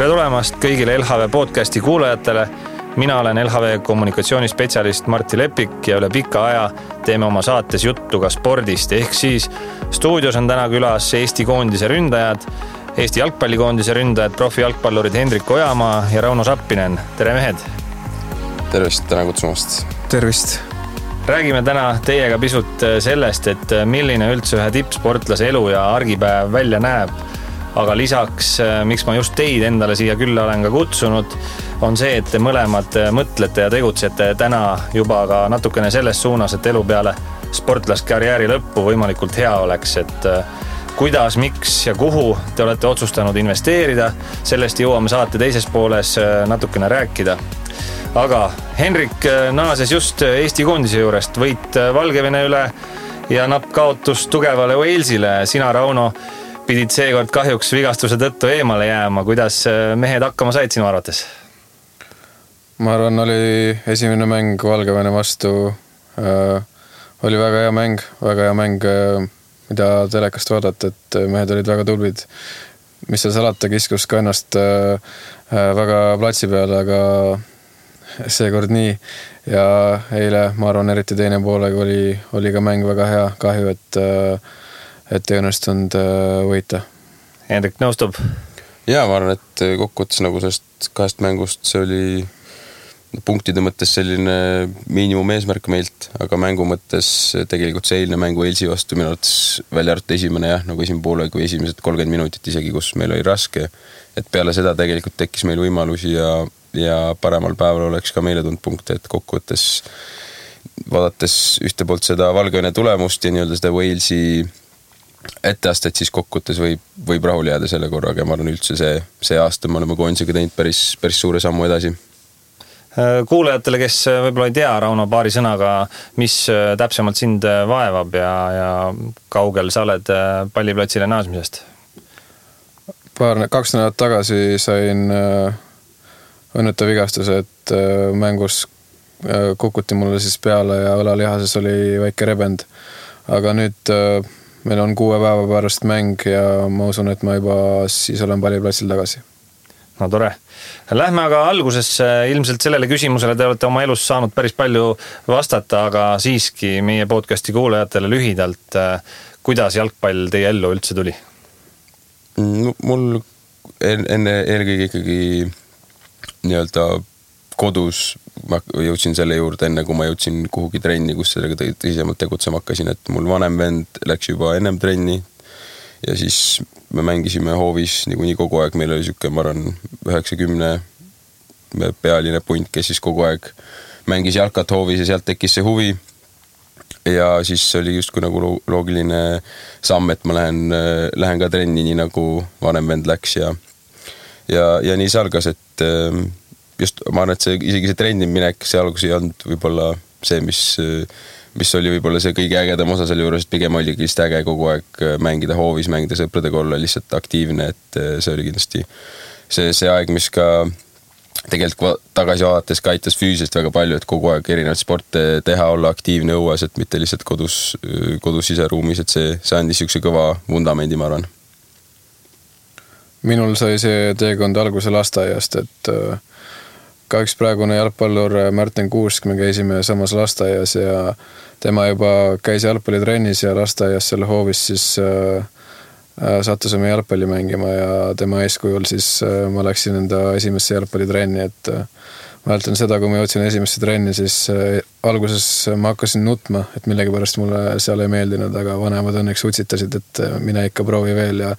Tere tulemast kõigile LHV podcasti kuulajatele. Mina olen LHV kommunikatsioonispetsialist Martti Lepik ja üle pika aja teeme oma saates juttu ka spordist. Ehk siis stuudios on täna külas Eesti koondise ründajad, Eesti jalgpallikoondise ründajad, profijalgpallurid Hendrik Ojamaa ja Rauno Sappinen. Tere mehed! Tervist, täna kutsumast! Tervist! Räägime täna teiega pisut sellest, et milline üldse ühe tippsportlase elu ja argipäev välja näeb. Aga lisaks, miks ma just teid endale siia külla olen ka kutsunud, on see, et te mõlemad mõtlete ja tegutsete täna juba ka natukene selles suunas, et elu peale sportlaskarjääri lõppu võimalikult hea oleks, et kuidas, miks ja kuhu te olete otsustanud investeerida. Sellest jõuame saate teises pooles natukene rääkida. Aga Henrik naases just Eesti koondise juurest, võit Valgevene üle ja napp kaotus tugevale Walesile. Sina, Rauno, pidid seekord kahjuks vigastuse tõttu eemale jääma. Kuidas mehed hakkama said sinu arvates? Ma arvan, oli esimene mäng Valgevene vastu. Oli väga hea mäng, mida telekast vaadata, et mehed olid väga tublid. Mis seal salata, kiskus ka ennast väga platsi peale, aga seekord nii. Ja eile, ma arvan, eriti teine poolega oli ka mäng väga hea. Kahju, et ei õnnestunud võita. Hendrik nõustub? Jaa, ma arvan, et kokkuvõttes nagu sellest kahest mängust see oli punktide mõttes selline miinimum eesmärk meilt, aga mängu mõttes tegelikult see eilne mängu Walesi vastu minu arvates välja arvatud esimene, nagu esimene poole kui esimesed 30 minutit isegi, kus meil oli raske, et peale seda tegelikult tekkis meil võimalusi ja paremal päeval oleks ka meile tulnud punkte, et kokkuvõttes vaadates ühte poolt seda Valgevene tulemust ja nii-öelda seda Walesi etteastet, siis kokkuvõttes võib rahul jääda selle korraga ja ma arvan üldse see aasta me oleme koondisega teinud päris suure sammu edasi. Kuulajatele, kes võib-olla ei tea, Rauno, paari sõnaga, mis täpsemalt sind vaevab ja kaugel sa oled palliplatsile naasmisest? 2 nädalat tagasi sain õnnetu vigastuse, et mängus kukuti mulle siis peale ja õlalihases oli väike rebend. Aga nüüd meil on 6 päeva pärast mäng ja ma usun, et ma juba siis olen palliplatsil tagasi. No tore. Lähme aga alguses ilmselt sellele küsimusele te olete oma elus saanud päris palju vastata, aga siiski meie podcasti kuulajatele lühidalt, kuidas jalgpall teie ellu üldse tuli? Mul enne eelkõige ikkagi nii-öelda kodus ma jõudsin selle juurde enne, kui ma jõudsin kuhugi trenni, kus sellega tõsisemalt tegutsema hakkasin, et mul vanem vend läks juba ennem trenni ja siis me mängisime hoovis nii kogu aeg, meil oli siuke, ma arvan, 90 pealine punt, kes siis kogu aeg mängis jalkat hoovis ja sealt tekkis see huvi ja siis oli justkui nagu loogiline samm, et ma lähen ka trenni nii nagu vanem vend läks ja nii see algas, et just ma arvan, et isegi see trenni minek, see algus ei olnud võib-olla see, mis oli võib-olla see kõige ägedam osa selle juures, et pigem oli kindlasti äge kogu aeg mängida hoovis, mängida sõpradega, olla lihtsalt aktiivne, et see oli kindlasti see aeg, mis ka tegelikult tagasi vaadates ka aitas füüsiliselt väga palju, et kogu aeg erinevaid sporte teha, olla aktiivne õues, et mitte lihtsalt kodus siseruumis, et see andis siukse kõva vundamendi, ma arvan. Minul sai see teekond alguse lasteaiast, et ka üks praegune jalgpallur Märten Kuusk, me käisime samas lasteaias ja tema juba käis jalgpallitrennis ja lasteaias selle hoovis siis sattusime jalgpalli mängima ja tema eeskujul siis ma läksin enda esimesse jalgpallitrenni, et ma mäletan seda, kui ma jõudsin esimesse trenni, siis alguses ma hakkasin nutma, et millegipärast mulle seal ei meeldinud, aga vanemad õnneks utsitasid, et mine ikka proovi veel ja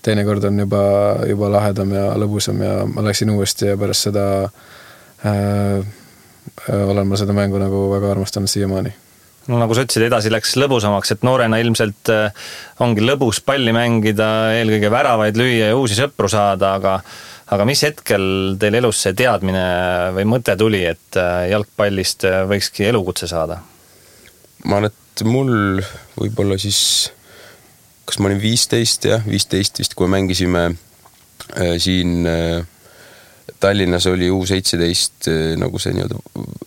teine kord on juba lahedam ja lõbusam ja ma läksin uuesti ja pärast seda olen ma seda mängu nagu väga armastanud siiamaani. No nagu sa ütlesid, edasi läks lõbusamaks, et noorena ilmselt ongi lõbus palli mängida, eelkõige väravaid lüüa ja uusi sõpru saada, aga mis hetkel teil elus see teadmine või mõte tuli, et jalgpallist võikski elukutse saada? Ma arvan, et mul võib-olla siis, kas ma olin 15 vist, kui mängisime siin Tallinnas oli U17 nagu see nii-öelda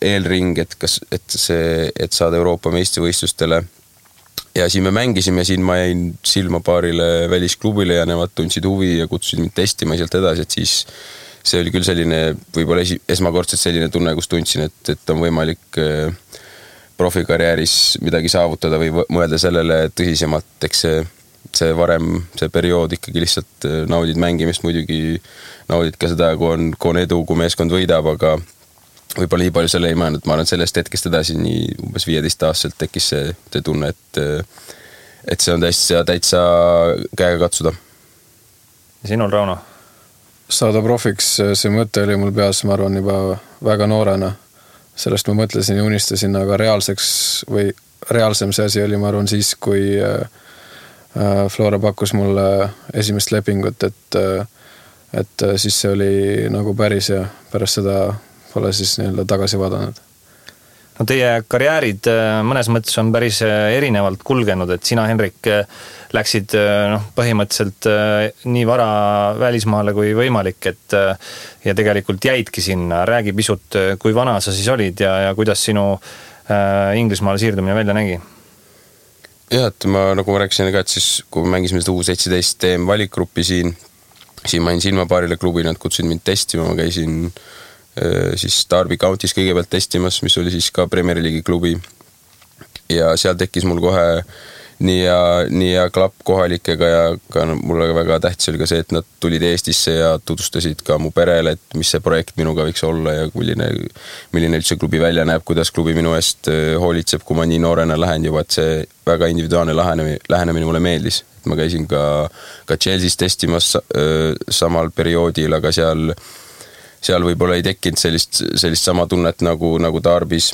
eelring, et saada Euroopa meistrivõistlustele ja siin me mängisime, siin ma jäin silma paarile välisklubile ja nemad tundsid huvi ja kutsusid mind testima sealt edasi, et siis see oli küll selline, võib-olla esmakordselt selline tunne, kus tundsin, et on võimalik profikarjääris midagi saavutada või mõelda sellele tõsisemalt, eks see varem, see periood ikkagi lihtsalt naudid mängimist, muidugi naudid ka seda, kui on edu, kui meeskond võidab, aga võib-olla nii palju selle ei mõelnud, ma arvan, et sellest hetkest edasi nii umbes 15-aastaselt tekkis see tunne, et see on täitsa käega katsuda. Sinul, Rauno? Saada profiks, see mõte oli mul peas, ma arvan, juba väga noorena. Sellest ma mõtlesin ja unistasin, aga reaalsem see asi oli, ma arvan, siis, kui Flora pakkus mulle esimest lepingut, et siis see oli nagu päris ja pärast seda pole siis nii-öelda tagasi vaadanud. No teie karjäärid mõnes mõttes on päris erinevalt kulgenud, et sina, Henrik, läksid põhimõtteliselt nii vara välismaale kui võimalik, ja tegelikult jäidki sinna. Räägi pisut, kui vana sa siis olid ja kuidas sinu Inglismaale siirdumine välja nägi? Jah, et nagu ma rääkisin ka, et siis kui mängisime seda U17 TM valikgruppi siin ma jäin silma paarile klubi, nad kutsusid mind testima, ma käisin siis Derby County's kõigepealt testimas, mis oli siis ka Premier League'i klubi ja seal tekkis mul kohe nii ja klapp kohalikega ja ka mulle väga tähtis oli ka see, et nad tulid Eestisse ja tutvustasid ka mu perele, et mis see projekt minuga võiks olla ja milline üldse klubi välja näeb, kuidas klubi minu eest hoolitseb, kui ma nii noorena lähen juba, et see väga individuaalne lähenemine mulle meeldis. Ma käisin ka Chelsea's testimas samal perioodil, aga seal võib-olla ei tekkinud sellist sama tunnet nagu Derby's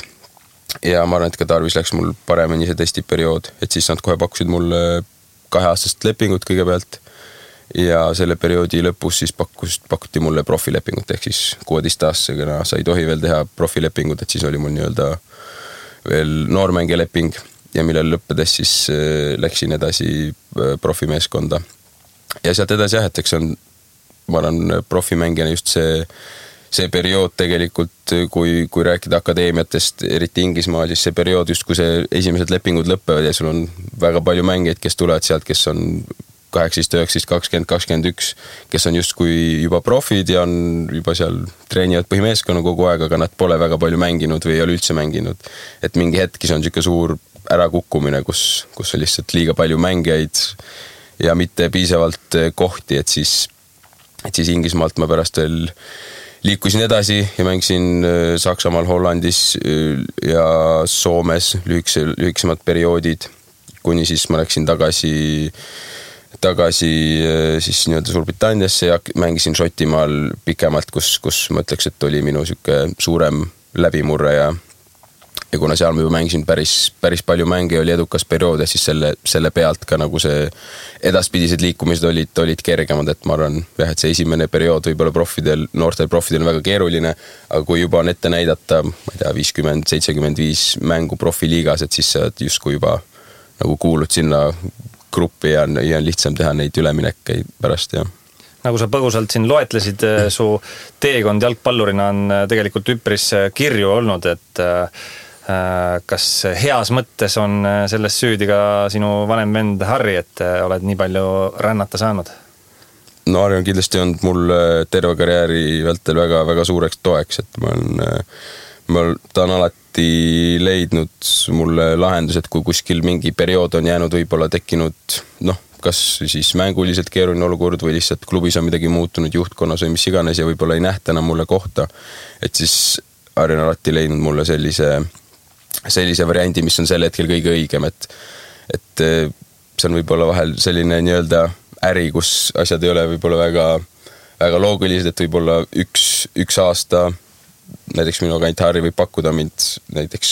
ja ma arvan, et ka Derby's läks mul paremini see testiperiood, et siis nad kohe pakkusid mulle 2-aastast lepingut kõigepealt ja selle perioodi lõpus siis pakuti mulle profilepingut, ehk siis 16-aastasega sa ei tohi veel teha profilepingut, et siis oli mul nii-öelda veel noormängija leping ja millel lõppedes siis läksin edasi profimeeskonda ja sealt edasi jah, et eks on ma arvan, profimängijana just see periood tegelikult, kui rääkida akadeemiatest, eriti Inglismaal, siis see periood just, kui see esimesed lepingud lõppevad ja sul on väga palju mängijaid, kes tulevad sealt, kes on 18, 19, 20, 21, kes on justkui juba profid ja on juba seal treenivad põhimeeskonna kogu aeg, aga nad pole väga palju mänginud või ei ole üldse mänginud. Et mingi hetkis on siuke suur ärakukkumine, kus on lihtsalt liiga palju mängijaid ja mitte piisavalt kohti, et siis Inglismaalt ma pärast veel liikusin edasi ja mängisin Saksamaal, Hollandis ja Soomes lühiksemad perioodid, kuni siis ma läksin tagasi siis nii-öelda Suurbritanniasse ja mängisin Šotimaal pikemalt, kus ma ütleks, et oli minu siuke suurem läbimurre ja kuna seal ma juba mängisin päris palju mänge ja oli edukas periood ja siis selle pealt ka nagu see edaspidised liikumised olid kergemad, et ma arvan, et see esimene periood võib-olla noortel profidel on väga keeruline, aga kui juba on ette näidata, ma ei tea, 50-75 mängu profiliigas, et siis sa justkui juba nagu kuulud sinna gruppi ja on lihtsam teha neid üleminekkeid pärast, jah. Nagu sa põgusalt siin loetlesid, su teekond jalgpallurina on tegelikult üpris kirju olnud, et kas heas mõttes on selles süüdi ka sinu vanem vend Harri, et oled nii palju rännata saanud? No Harri on kindlasti olnud mul terve karjääri vältel väga suureks toeks, et ta on alati leidnud mulle lahendused, kui kuskil mingi periood on jäänud, võib-olla tekkinud, kas siis mänguliselt keeruline olukord või lihtsalt klubis on midagi muutunud juhtkonnas või mis iganes ja võib-olla ei nähta enam mulle kohta, et siis Harri on alati leidnud mulle sellise variandi, mis on sel hetkel kõige õigem, et see on võib-olla vahel selline nii-öelda äri, kus asjad ei ole võib-olla väga loogilised, et võib-olla üks aasta näiteks minu agent Harri võib pakkuda mind näiteks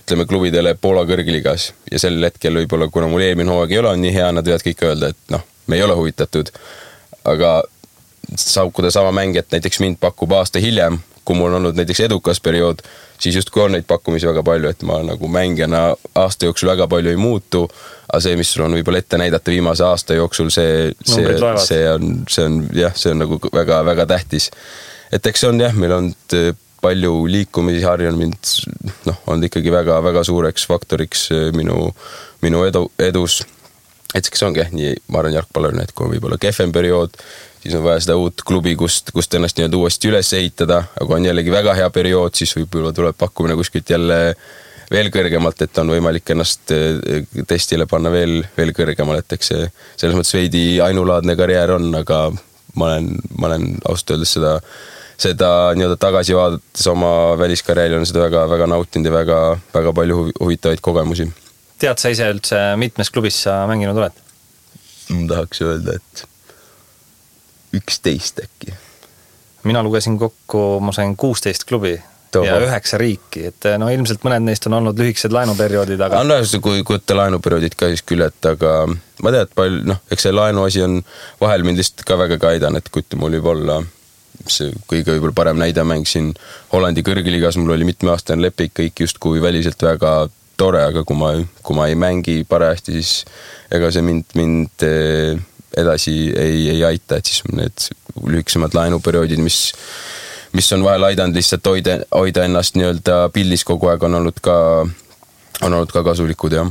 ütleme klubidele Poola kõrgligas ja sel hetkel võib-olla, kuna mul eelmine hooaeg ei ole nii hea, nad võivad kõik öelda, et me ei ole huvitatud, aga saukuda sama mängijat näiteks mind pakub aasta hiljem, kui mul on olnud näiteks edukas periood, siis justkui on neid pakkumisi väga palju, et ma nagu mängijana aasta jooksul väga palju ei muutu, aga see, mis sul on võib-olla ette näidata viimase aasta jooksul, see on nagu väga tähtis. Et eks see on jah, meil on palju liikumisi harjunud mind on ikkagi väga-väga suureks faktoriks minu edus. Et kes ongi nii, ma arvan jalgpallurina, et kui on võib-olla kehvem periood, siis on vaja seda uut klubi, kust ennast nii uuesti üles ehitada, aga on jällegi väga hea periood, siis võib-olla tuleb pakkumine kuskilt jälle veel kõrgemalt, et on võimalik ennast testile panna veel kõrgemal, et eks see selles mõttes veidi ainulaadne karjäär on, aga ma olen ausalt öeldes seda nii-öelda tagasi vaadates oma väliskarjääri on seda väga nautinud ja väga palju huvitavaid kogemusi. Tead sa ise üldse, mitmes klubis sa mänginud oled? Ma tahaks öelda, et 11 äkki. Mina lugesin kokku, ma sain 16 klubi. Ja 9 riiki, et ilmselt mõned neist on olnud lühikesed laenuperioodid, aga... kui võtta laenuperioodid ka siis küll, et aga ma tean, et eks see laenu asi on vahel mind lihtsalt ka väga aidan, et kui mul võib olla see kõige võib-olla parem näide mängisin Hollandi kõrgliigas, mul oli mitmeaastane leping, kõik justkui väliselt väga tore, aga kui ma ei mängi parajasti, siis ega see mind edasi ei aita, et siis need lühikesemad laenuperioodid, mis on vahel aidanud lihtsalt hoida ennast nii-öelda pildis kogu aeg, on olnud ka kasulikud, jah.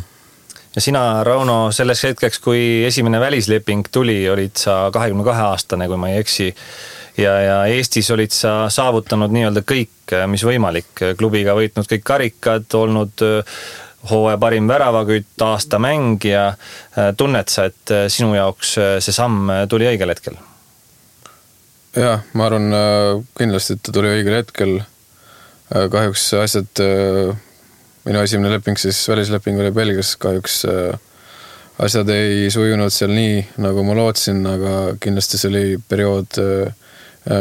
Ja sina, Rauno, selles hetkeks, kui esimene välisleping tuli, olid sa 22-aastane, kui ma ei eksi, ja Eestis olid sa saavutanud nii-öelda kõik, mis võimalik. Klubiga võitnud kõik karikad, olnud hooaja parim väravakütt, aasta mängija. Tunned sa, et sinu jaoks see samm tuli õigel hetkel? Jah, ma arvan kindlasti, et ta tuli õigel hetkel. Kahjuks asjad, minu esimene leping, siis välisleping oli Belgias, kahjuks asjad ei sujunud seal nii, nagu ma lootsin, aga kindlasti see oli periood,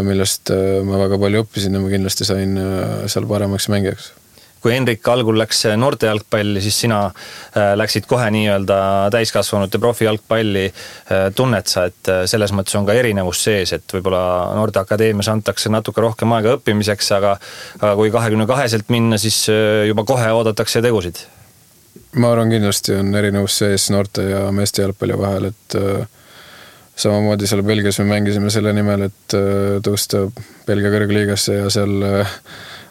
millest ma väga palju õppisin ja ma kindlasti sain seal paremaks mängijaks. Kui Henrik algul läks noorte jalgpalli, siis sina läksid kohe nii-öelda täiskasvanute profijalgpalli. Tunned sa, et selles mõttes on ka erinevus sees, et võib-olla noorteakadeemias antakse natuke rohkem aega õppimiseks, aga kui 22-selt minna, siis juba kohe oodatakse tegusid? Ma arvan, kindlasti on erinevus sees noorte ja meeste jalgpalli vahel, et samamoodi seal Belgias me mängisime selle nimel, et tõusta Belgia kõrgliigasse ja seal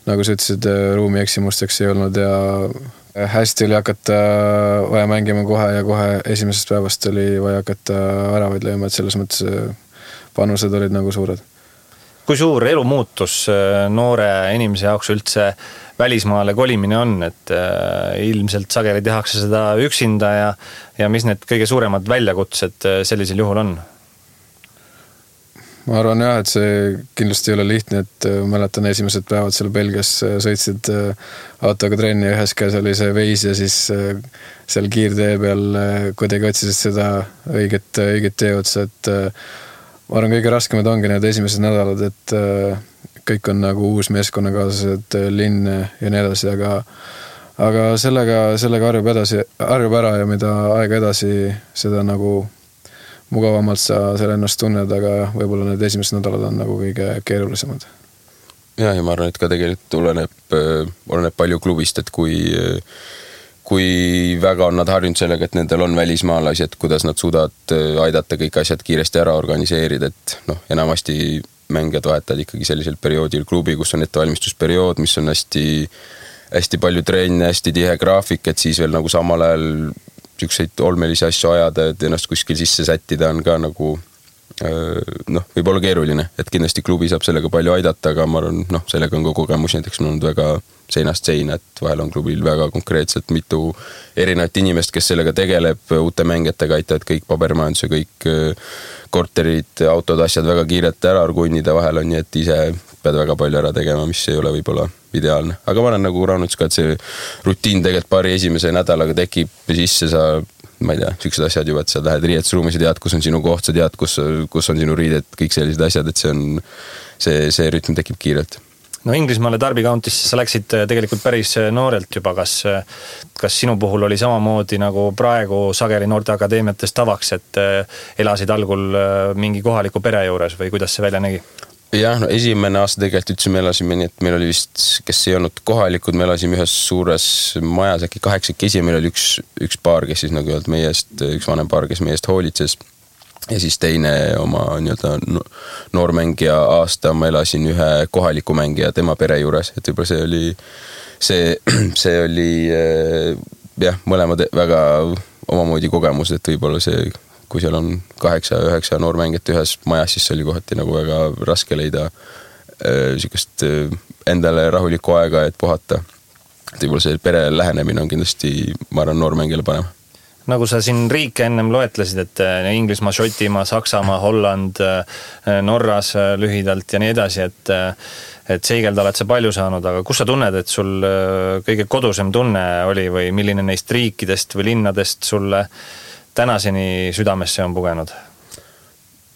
nagu sa ütlesid, ruumi eksimusteks ei olnud ja hästi oli hakata vaja mängima kohe ja kohe esimesest päevast oli vaja hakata väravaid lööma, et selles mõttes panused olid nagu suured. Kui suur elumuutus noore inimese jaoks üldse välismaale kolimine on, et ilmselt sageli tehakse seda üksinda ja mis need kõige suuremad väljakutsed sellisel juhul on? Ma arvan jah, et see kindlasti ei ole lihtne, et mäletan esimesed päevad seal Belgias sõitsid autoga trenni ja ühes käes oli see veis ja siis seal kiirtee peal kuidagi otsisid seda õiget teeotsa, et ma arvan, kõige raskemad ongi need esimesed nädalad, et kõik on nagu uus meeskonnakaaslased, linn ja nii edasi, aga sellega harjub ära ja mida aega edasi, seda nagu mugavamalt sa selle ennast tunned, aga võib-olla need esimesed nädalad on nagu kõige keerulisemad. Ja ma arvan, et ka tegelikult oleneb palju klubist, et kui väga on nad harjunud sellega, et nendel on välismaalasi, et kuidas nad suudavad aidata kõik asjad kiiresti ära organiseerida, et enamasti mängijad vahetavad ikkagi sellisel perioodil klubi, kus on ettevalmistusperiood, mis on hästi palju treenne, hästi tihe graafik, et siis veel nagu samal ajal ükseid olmelisi asju ajada, et ennast kuskil sisse sättida on ka nagu võib olla keeruline, et kindlasti klubi saab sellega palju aidata, aga ma arvan, sellega on ka kogemus, näiteks on olnud väga seinast seina, et vahel on klubil väga konkreetselt mitu erinevat inimest, kes sellega tegeleb, uute mängijatega aitavad kõik pabermajanduse, kõik korterid, autod, asjad väga kiirelt ära argunnida, vahel on nii, et ise pead väga palju ära tegema, mis ei ole võib-olla ideaalne. Aga ma olen nagu Raunuts ka, et see rutiin tegelikult paari esimese nädalaga tekib sisse, sa, ma ei tea, sellised asjad juba, et sa lähed riietusruumis ja tead, kus on sinu koht, sa tead, kus on sinu riided, kõik sellised asjad, et see rütm tekib kiirelt. No Inglismaale Derby County'sse sa läksid tegelikult päris noorelt juba, kas sinu puhul oli samamoodi nagu praegu sageli noorteakadeemiates tavaks, et elasid algul mingi kohaliku pere juures või kuidas see välja nägi? Jah, esimene aasta tegelikult üldse me elasime nii, et meil oli vist, kes ei olnud kohalikud, me elasime ühes suures majas, äkki 8 meil oli üks paar, kes siis nagu üks vanem paar, kes meie eest hoolitses. ja siis teine oma nii-öelda noormängija aasta ma elasin ühe kohaliku mängija tema pere juures, et võib-olla see oli jah, mõlemad väga omamoodi kogemus, et võib-olla see, kui seal on 8-9 noormängijat ühes majas, siis see oli kohati nagu väga raske leida niisugust endale rahulikku aega, et puhata. Et võib-olla see pere lähenemine on kindlasti, ma arvan, noormängijale parem. Nagu sa siin riike ennem loetlesid, et Inglismaa, Šotimaa, Saksamaa, Holland, Norras lühidalt ja nii edasi, et seigelda oled sa palju saanud, aga kus sa tunned, et sul kõige kodusem tunne oli või milline neist riikidest või linnadest sulle tänaseni südamesse on pugenud?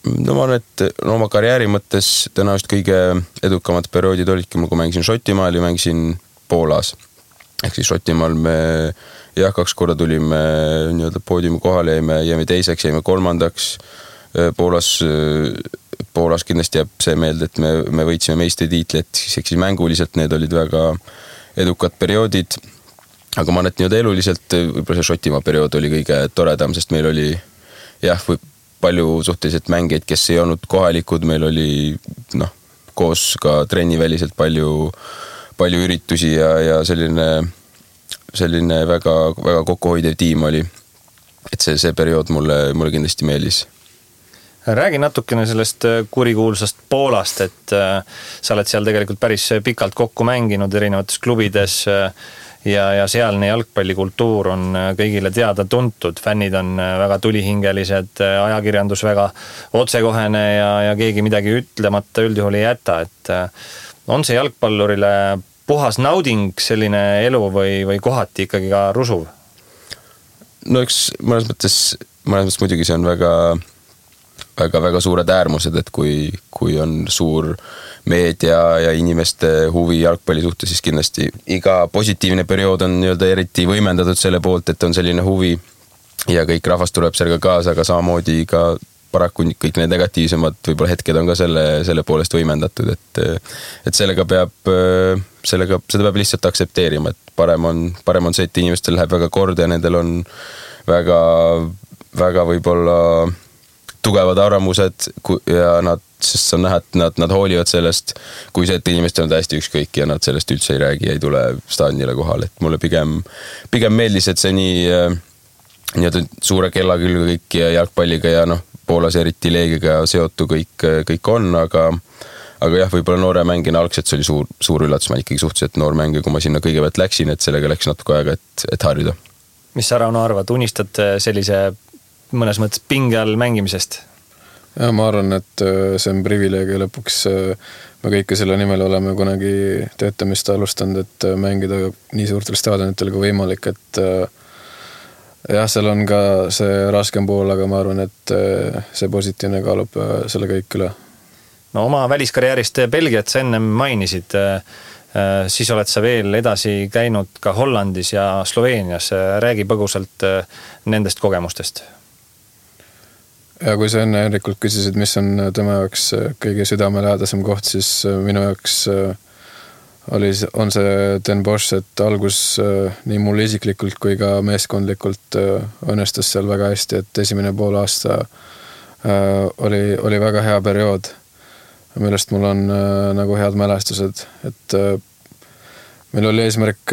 No ma arvan, et oma karjääri mõttes tõenäoliselt kõige edukamad perioodid olidki mul, kui mängisin Šotimaal ja mängisin Poolas. Ehk siis Šotimaal me 2 korda tulime nii-öelda poodiumi kohale, jäime teiseks, jäime kolmandaks. Poolas kindlasti jääb see meelde, et me võitsime meistritiitli, et siis mänguliselt need olid väga edukad perioodid. Aga ma arvan, et nii-öelda eluliselt võib-olla see Šotimaa periood oli kõige toredam, sest meil oli palju suhteliselt mängeid, kes ei olnud kohalikud, meil oli koos ka trenniväliselt palju üritusi ja selline väga, väga kokkuhoidev tiim oli. Et see periood mulle kindlasti meeldis. Räägi natukene sellest kurikuulsast Poolast, et sa oled seal tegelikult päris pikalt kokku mänginud erinevates klubides ja sealne jalgpallikultuur on kõigile teada tuntud. Fännid on väga tulihingelised, ajakirjandus väga otsekohene ja keegi midagi ütlemata üldjuhul ei jäta. Et on see jalgpallurile puhas nauding selline elu või kohati ikkagi ka rusuv? No eks mõnes mõttes muidugi see on väga suured äärmused, et kui on suur meedia ja inimeste huvi jalgpalli suhtes, siis kindlasti iga positiivne periood on nii-öelda eriti võimendatud selle poolt, et on selline huvi ja kõik rahvas tuleb sellega kaasa, aga samamoodi ka paraku kõik need negatiivsemad võib-olla hetked on ka selle poolest võimendatud, et seda peab lihtsalt aktsepteerima, et parem on see, et inimestel läheb väga korda ja nendel on väga võib-olla tugevad arvamused ja sest on näha, et nad hoolivad sellest, kui see, et inimestel on täiesti ükskõik ja nad sellest üldse ei räägi, ei tule staadionile kohale, et mulle pigem meeldis, et see nii suure kella külge kõik ja jalgpalliga ja Poolas eriti leegiga seotu kõik on, aga jah, võib-olla noore mängina algselt see oli suur üllatus, ma ikkagi suhteliselt noor mängija, kui ma sinna kõigepealt läksin, et sellega läks natuke aega, et harjuda. Mis sa, Rauno, arvad, unistad sellise mõnes mõttes pinge all mängimisest? Ja ma arvan, et see on privileeg ja lõpuks me kõike selle nimel oleme kunagi töötamist alustanud, et mängida nii suurtel staadionitel kui võimalik, et jah, seal on ka see raskem pool, aga ma arvan, et see positiivne kaalub selle kõik üle. No oma väliskarjäärist Belgiat sa ennem mainisid, siis oled sa veel edasi käinud ka Hollandis ja Sloveenias. Räägi põgusalt nendest kogemustest. Ja kui sa enne Henrikult küsisid, mis on tema jaoks kõige südamelähedasem koht, siis minu jaoks on see Den Bosch, et algus nii mul isiklikult kui ka meeskondlikult õnnestus seal väga hästi, et esimene pool aasta oli väga hea periood, millest mul on nagu head mälestused, et meil oli eesmärk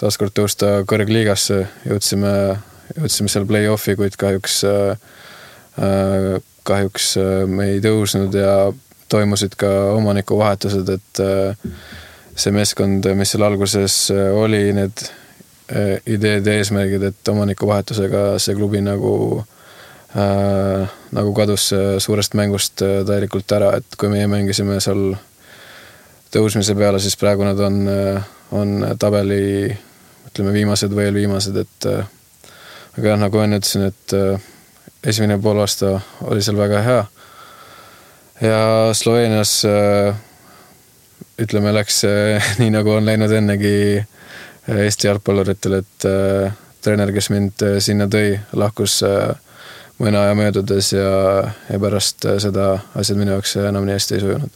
taaskord tõusta kõrgliigasse, jõudsime seal play-offi, kuid kahjuks me ei tõusnud ja toimusid ka omanikuvahetused, et see meeskond, mis seal alguses oli, need ideed ja eesmärgid, et omanikuvahetusega see klubi nagu kadus suurest mängust täielikult ära, et kui meie mängisime seal tõusmise peale, siis praegu nad on tabeli, ütleme, viimased või viimased, et aga jah, nagu enne ütlesin, et esimene pool aasta oli seal väga hea ja Sloveenias ütleme, läks nii nagu on läinud ennegi Eesti jalgpalluritel, et treener, kes mind sinna tõi, lahkus mõne aja möödudes ja pärast seda asjad minu jaoks enam nii hästi ei sujunud.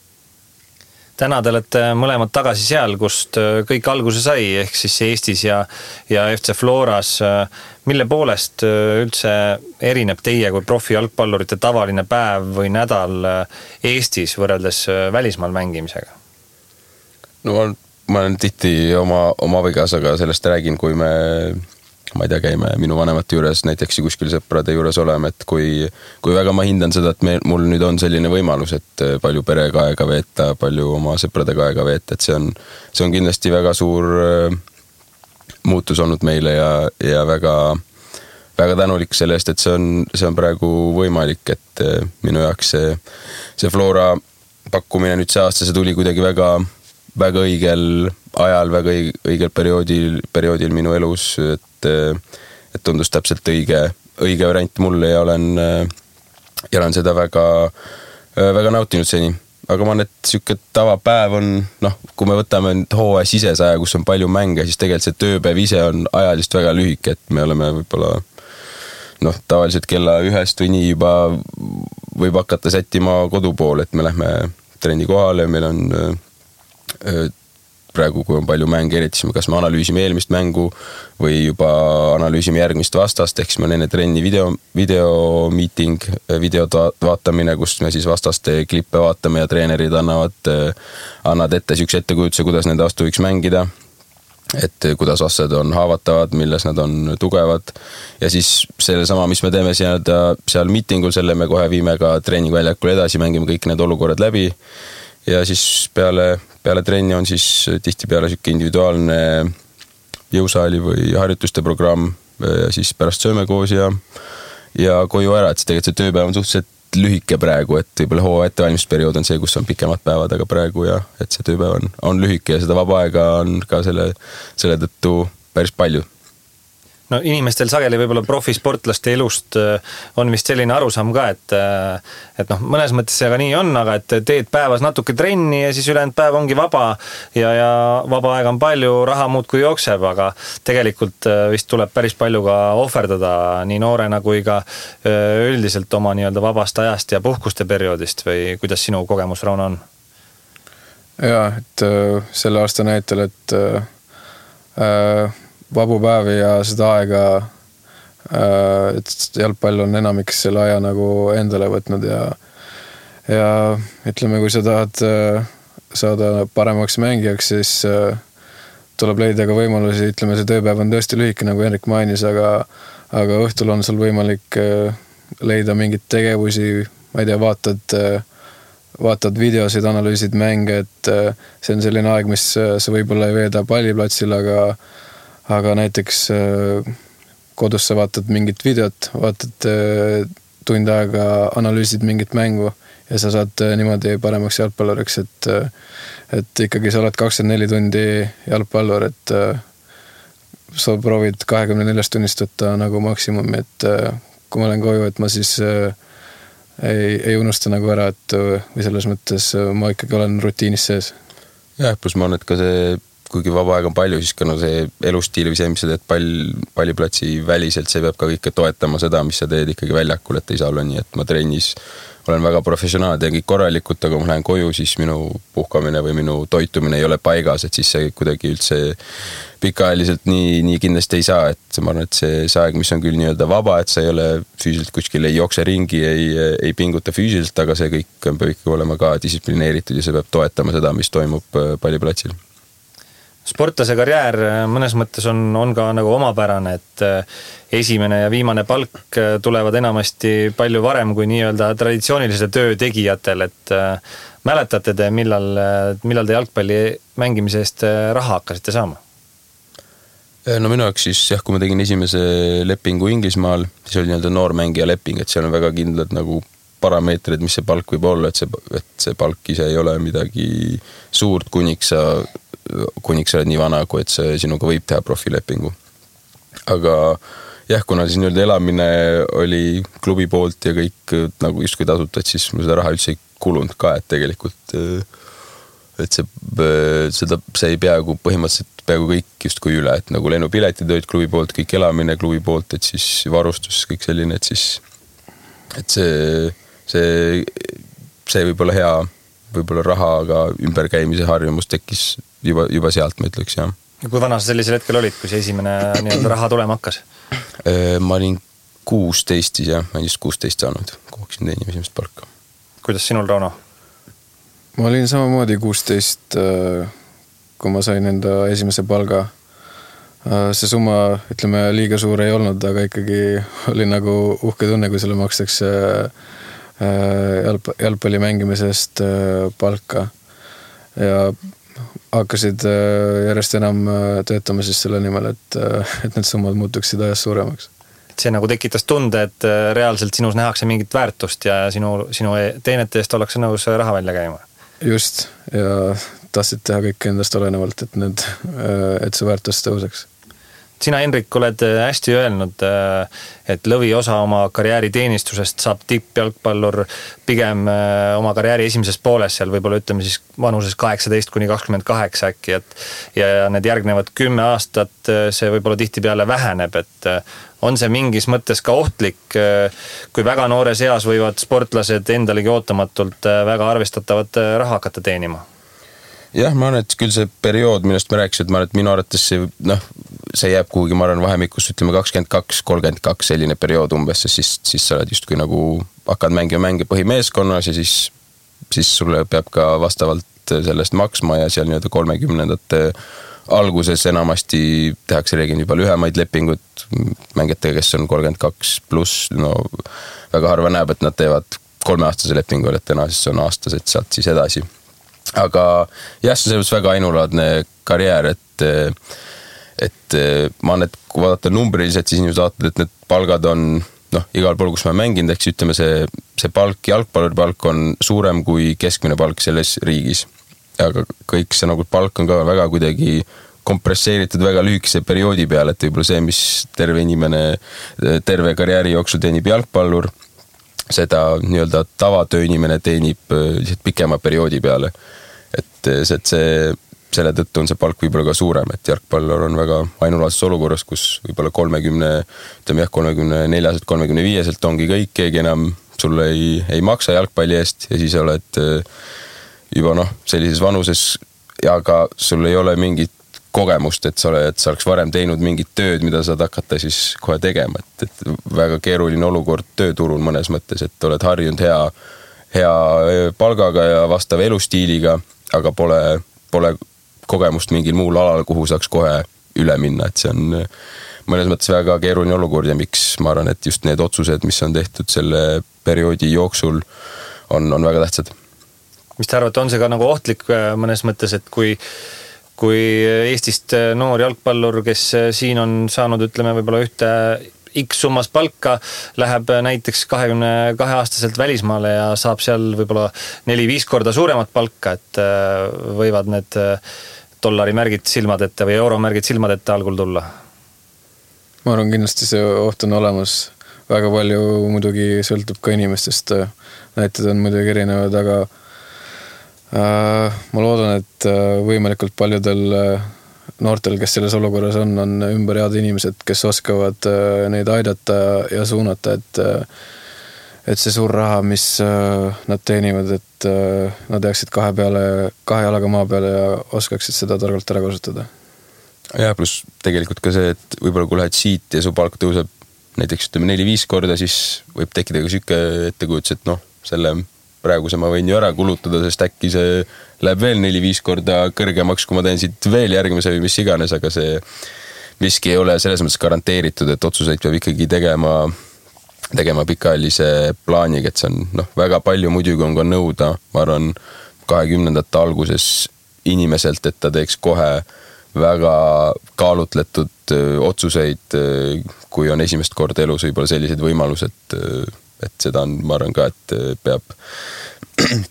täna te olete mõlemad tagasi seal, kust kõik alguse sai, ehk siis Eestis ja FC Floras. Mille poolest üldse erineb teie kui profijalgpallurite tavaline päev või nädal Eestis võrreldes välismaal mängimisega? No ma olen tihti oma vigas, aga sellest räägin, kui ma ei tea, käime minu vanemate juures näiteks kuskil sõprade juures oleme, et kui väga ma hindan seda, et mul nüüd on selline võimalus, et palju perega aega veeta, palju oma sõpradega aega veeta, et see on kindlasti väga suur muutus olnud meile ja väga, väga tänulik selle eest, et see on praegu võimalik, et minu jaoks see Flora pakkumine nüüd see aasta, see tuli kuidagi väga õigel ajal, väga õigel perioodil minu elus, et tundus täpselt õige variant mulle ja olen seda väga, väga nautinud seni. Aga ma arvan, et siuke tavapäev on, kui me võtame hooaja sisesaja, kus on palju mänge, siis tegelikult see tööpäev ise on ajalist väga lühike, et me oleme võib-olla tavaliselt kella 1 või nii juba võib hakata sättima kodu poole, et me lähme trenni kohale ja meil on praegu, kui on palju mänge, eriti kas me analüüsime eelmist mängu või juba analüüsime järgmist vastast, ehk siis meil on enne trenni videomeeting, videod vaatamine, kus me siis vastaste klippe vaatame ja treenerid annavad ette siukse ettekujutuse, kuidas nende vastu võiks mängida, et kuidas vastased on haavatavad, milles nad on tugevad ja siis selle sama, mis me teeme seal meetingul, selle me kohe viime ka treeningväljakule edasi, mängime kõik need olukorrad läbi ja siis peale trenni on siis tihtipeale siuke individuaalne jõusaali või harjutuste programm ja siis pärast sööme koos ja koju ära, et tegelikult see tööpäev on suhteliselt lühike praegu, et võib-olla hooaja ettevalmistusperiood on see, kus on pikemad päevad, aga praegu et see tööpäev on lühike ja seda vaba aega on ka selle tõttu päris palju. No inimestel sageli võib-olla profisportlaste elust on vist selline arusaam ka, et mõnes mõttes see aga nii on, aga et teed päevas natuke trenni ja siis ülejäänud päev ongi vaba ja vaba aega on palju, raha muudkui jookseb, aga tegelikult vist tuleb päris palju ka ohverdada nii noorena kui ka üldiselt oma nii-öelda vabast ajast ja puhkuste perioodist või kuidas sinu kogemus, Rauno, on? Jaa, et selle aasta näitel, et vabu päevi ja seda aega, et jalgpall on enamiks selle aja nagu endale võtnud ja ütleme, kui sa tahad saada paremaks mängijaks, siis tuleb leida ka võimalusi, ütleme, see tööpäev on tõesti lühike, nagu Henrik mainis, aga õhtul on sul võimalik leida mingit tegevusi, ma ei tea, vaatad videosid, analüüsid mänge, et see on selline aeg, mis sa võib-olla ei veeda palliplatsil, aga näiteks kodus sa vaatad mingit videot, vaatad tund aega, analüüsid mingit mängu ja sa saad niimoodi paremaks jalgpalluriks, et ikkagi sa oled 24 tundi jalgpallur, et sa proovid 24 tunnist võtta nagu maksimumi, et kui ma olen koju, et ma siis ei unusta nagu ära, et või selles mõttes ma ikkagi olen rutiinis sees. Jah, plus ma arvan, et ka see kuigi vaba aeg on palju, siis ka see elustiil või see, mis sa teed palliplatsi väliselt, see peab ka kõike toetama seda, mis sa teed ikkagi väljakul, et ei saa olla nii, et ma trennis olen väga professionaal, teen kõik korralikult, aga kui ma lähen koju, siis minu puhkamine või minu toitumine ei ole paigas, et siis see kuidagi üldse pikaajaliselt nii kindlasti ei saa, et ma arvan, et see aeg, mis on küll nii-öelda vaba, et sa ei ole füüsiliselt kuskil, ei jookse ringi, ei pinguta füüsiliselt, aga see kõik peab ikkagi olema ka distsiplineeritud ja see peab toetama seda, mis toimub palliplatsil. Sportlase karjäär mõnes mõttes on ka nagu omapärane, et esimene ja viimane palk tulevad enamasti palju varem kui nii-öelda traditsioonilise töö tegijatel, et mäletate te, millal te jalgpalli mängimise eest raha hakkasite saama? No minu jaoks siis jah, kui ma tegin esimese lepingu Inglismaal, siis oli nii-öelda noormängija leping, et seal on väga kindlad nagu parameetrid, mis see palk võib olla, et see palk ise ei ole midagi suurt, kuniks sa oled nii vana, kui et see sinuga võib teha profilepingu. Aga jah, kuna siis nii-öelda elamine oli klubi poolt ja kõik nagu justkui tasuta, et siis mul seda raha üldse ei kulunud ka, et tegelikult et see ei põhimõtteliselt peaaegu kõik justkui üle, et nagu lennupiletid olid klubi poolt, kõik elamine klubi poolt, et siis varustus, kõik selline, et siis et see võib olla võib-olla rahaga ümberkäimise harjumus tekkis juba sealt, ma ütleks, jah. Ja kui vana sa sellisel hetkel olid, kui see esimene nii-öelda raha tulema hakkas? Ma olin 16 siis, jah, ma olin just 16 saanud, kui hakkasin teenima esimest palka. Kuidas sinul, Rauno? Ma olin samamoodi 16, kui ma sain enda esimese palga. See summa, ütleme, liiga suur ei olnud, aga ikkagi oli nagu uhke tunne, kui sulle makstakse jalgpalli mängimisest palka ja hakkasid järjest enam töötama siis selle nimel, et need summad muutuksid ajas suuremaks. See nagu tekitas tunde, et reaalselt sinus nähakse mingit väärtust ja sinu teenete eest ollakse nõus raha välja käima. Just, ja tahtsid teha kõik endast olenevalt, et see väärtus tõuseks. Sina, Henrik, oled hästi öelnud, et lõvi osa oma karjääri teenistusest saab tippjalgpallur pigem oma karjääri esimeses pooles, seal võib-olla ütleme siis vanuses 18–28 äkki, ja need järgnevad 10 aastat see võib-olla tihtipeale väheneb, et on see mingis mõttes ka ohtlik, kui väga noores eas võivad sportlased endalegi ootamatult väga arvestatavat raha hakata teenima? Jah, ma arvan, et küll see periood, millest me rääkisime, et ma arvan, et minu arvates see jääb kuhugi, ma arvan, vahemikus, ütleme 22-32 selline periood umbes, siis sa oled just kui nagu hakkad mänge põhimeeskonnas ja siis sulle peab ka vastavalt sellest maksma ja seal nii-öelda 30ndate alguses enamasti tehakse reeglina juba lühemaid lepingut mängijatega, kes on 32 pluss, no väga harva näeb, et nad teevad 3-aastase lepingu, et täna siis on aastased sealt siis edasi. Aga jah, see on väga ainulaadne karjäär, et ma arvan, et kui vaadata numbriliselt, siis inimesed vaatavad, et need palgad on igal pool, kus ma mänginud, eks ütleme see palk, jalgpalluri palk on suurem kui keskmine palk selles riigis. Aga kõik see nagu palk on ka väga kuidagi kompresseeritud väga lühikese perioodi peale, et võib-olla see, mis terve inimene terve karjääri jooksul teenib jalgpallur, seda nii-öelda tavatööinimene teenib pikema perioodi peale. Et selle tõttu on see palk võib-olla ka suurem, et jalgpallur on väga ainulaadses olukorras, kus võib-olla 34-35 ongi kõik, keegi enam sulle ei maksa jalgpalli eest ja siis oled juba sellises vanuses ja ka sul ei ole mingit kogemust, et sa oleks varem teinud mingit tööd, mida saad hakata siis kohe tegema, et väga keeruline olukord tööturul mõnes mõttes, et oled harjunud hea palgaga ja vastava elustiiliga, aga pole kogemust mingil muul alal, kuhu saaks kohe üle minna, et see on mõnes mõttes väga keeruline olukord ja miks ma arvan, et just need otsused, mis on tehtud selle perioodi jooksul, on väga tähtsad. Mis te arvate, on see ka nagu ohtlik mõnes mõttes, et kui Eestist noor jalgpallur, kes siin on saanud, ütleme, võib-olla ühte X summas palka, läheb näiteks 22-aastaselt välismaale ja saab seal võib-olla 4-5 korda suuremat palka, et võivad need dollarimärgid silmadette või euromärgid silmadette algul tulla? Ma arvan, kindlasti see oht on olemas. Väga palju muidugi sõltub ka inimestest. Näited on muidugi erinevad, aga ma loodan, et võimalikult paljudel noortel, kes selles olukorras on ümber head inimesed, kes oskavad neid aidata ja suunata, et see suur raha, mis nad teenivad, et nad jääksid kahe jalaga maa peale ja oskaksid seda targalt ära kasutada. Ja pluss tegelikult ka see, et võib-olla kui lähed siit ja su palk tõuseb näiteks 4-5 korda, siis võib tekkida ka süke ettekujutus, et selle praegu ma võin ju ära kulutada, sest äkki see läheb veel 4-5 korda kõrgemaks, kui ma teen siit veel järgmise või mis iganes, aga see miski ei ole selles mõttes garanteeritud, et otsuseid peab ikkagi tegema pikaajalise plaaniga, et see on väga palju muidugi on ka nõuda, ma arvan 20-ndate alguses inimeselt, et ta teeks kohe väga kaalutletud otsuseid, kui on esimest korda elus võib-olla sellised võimalused, et seda on, ma arvan ka, et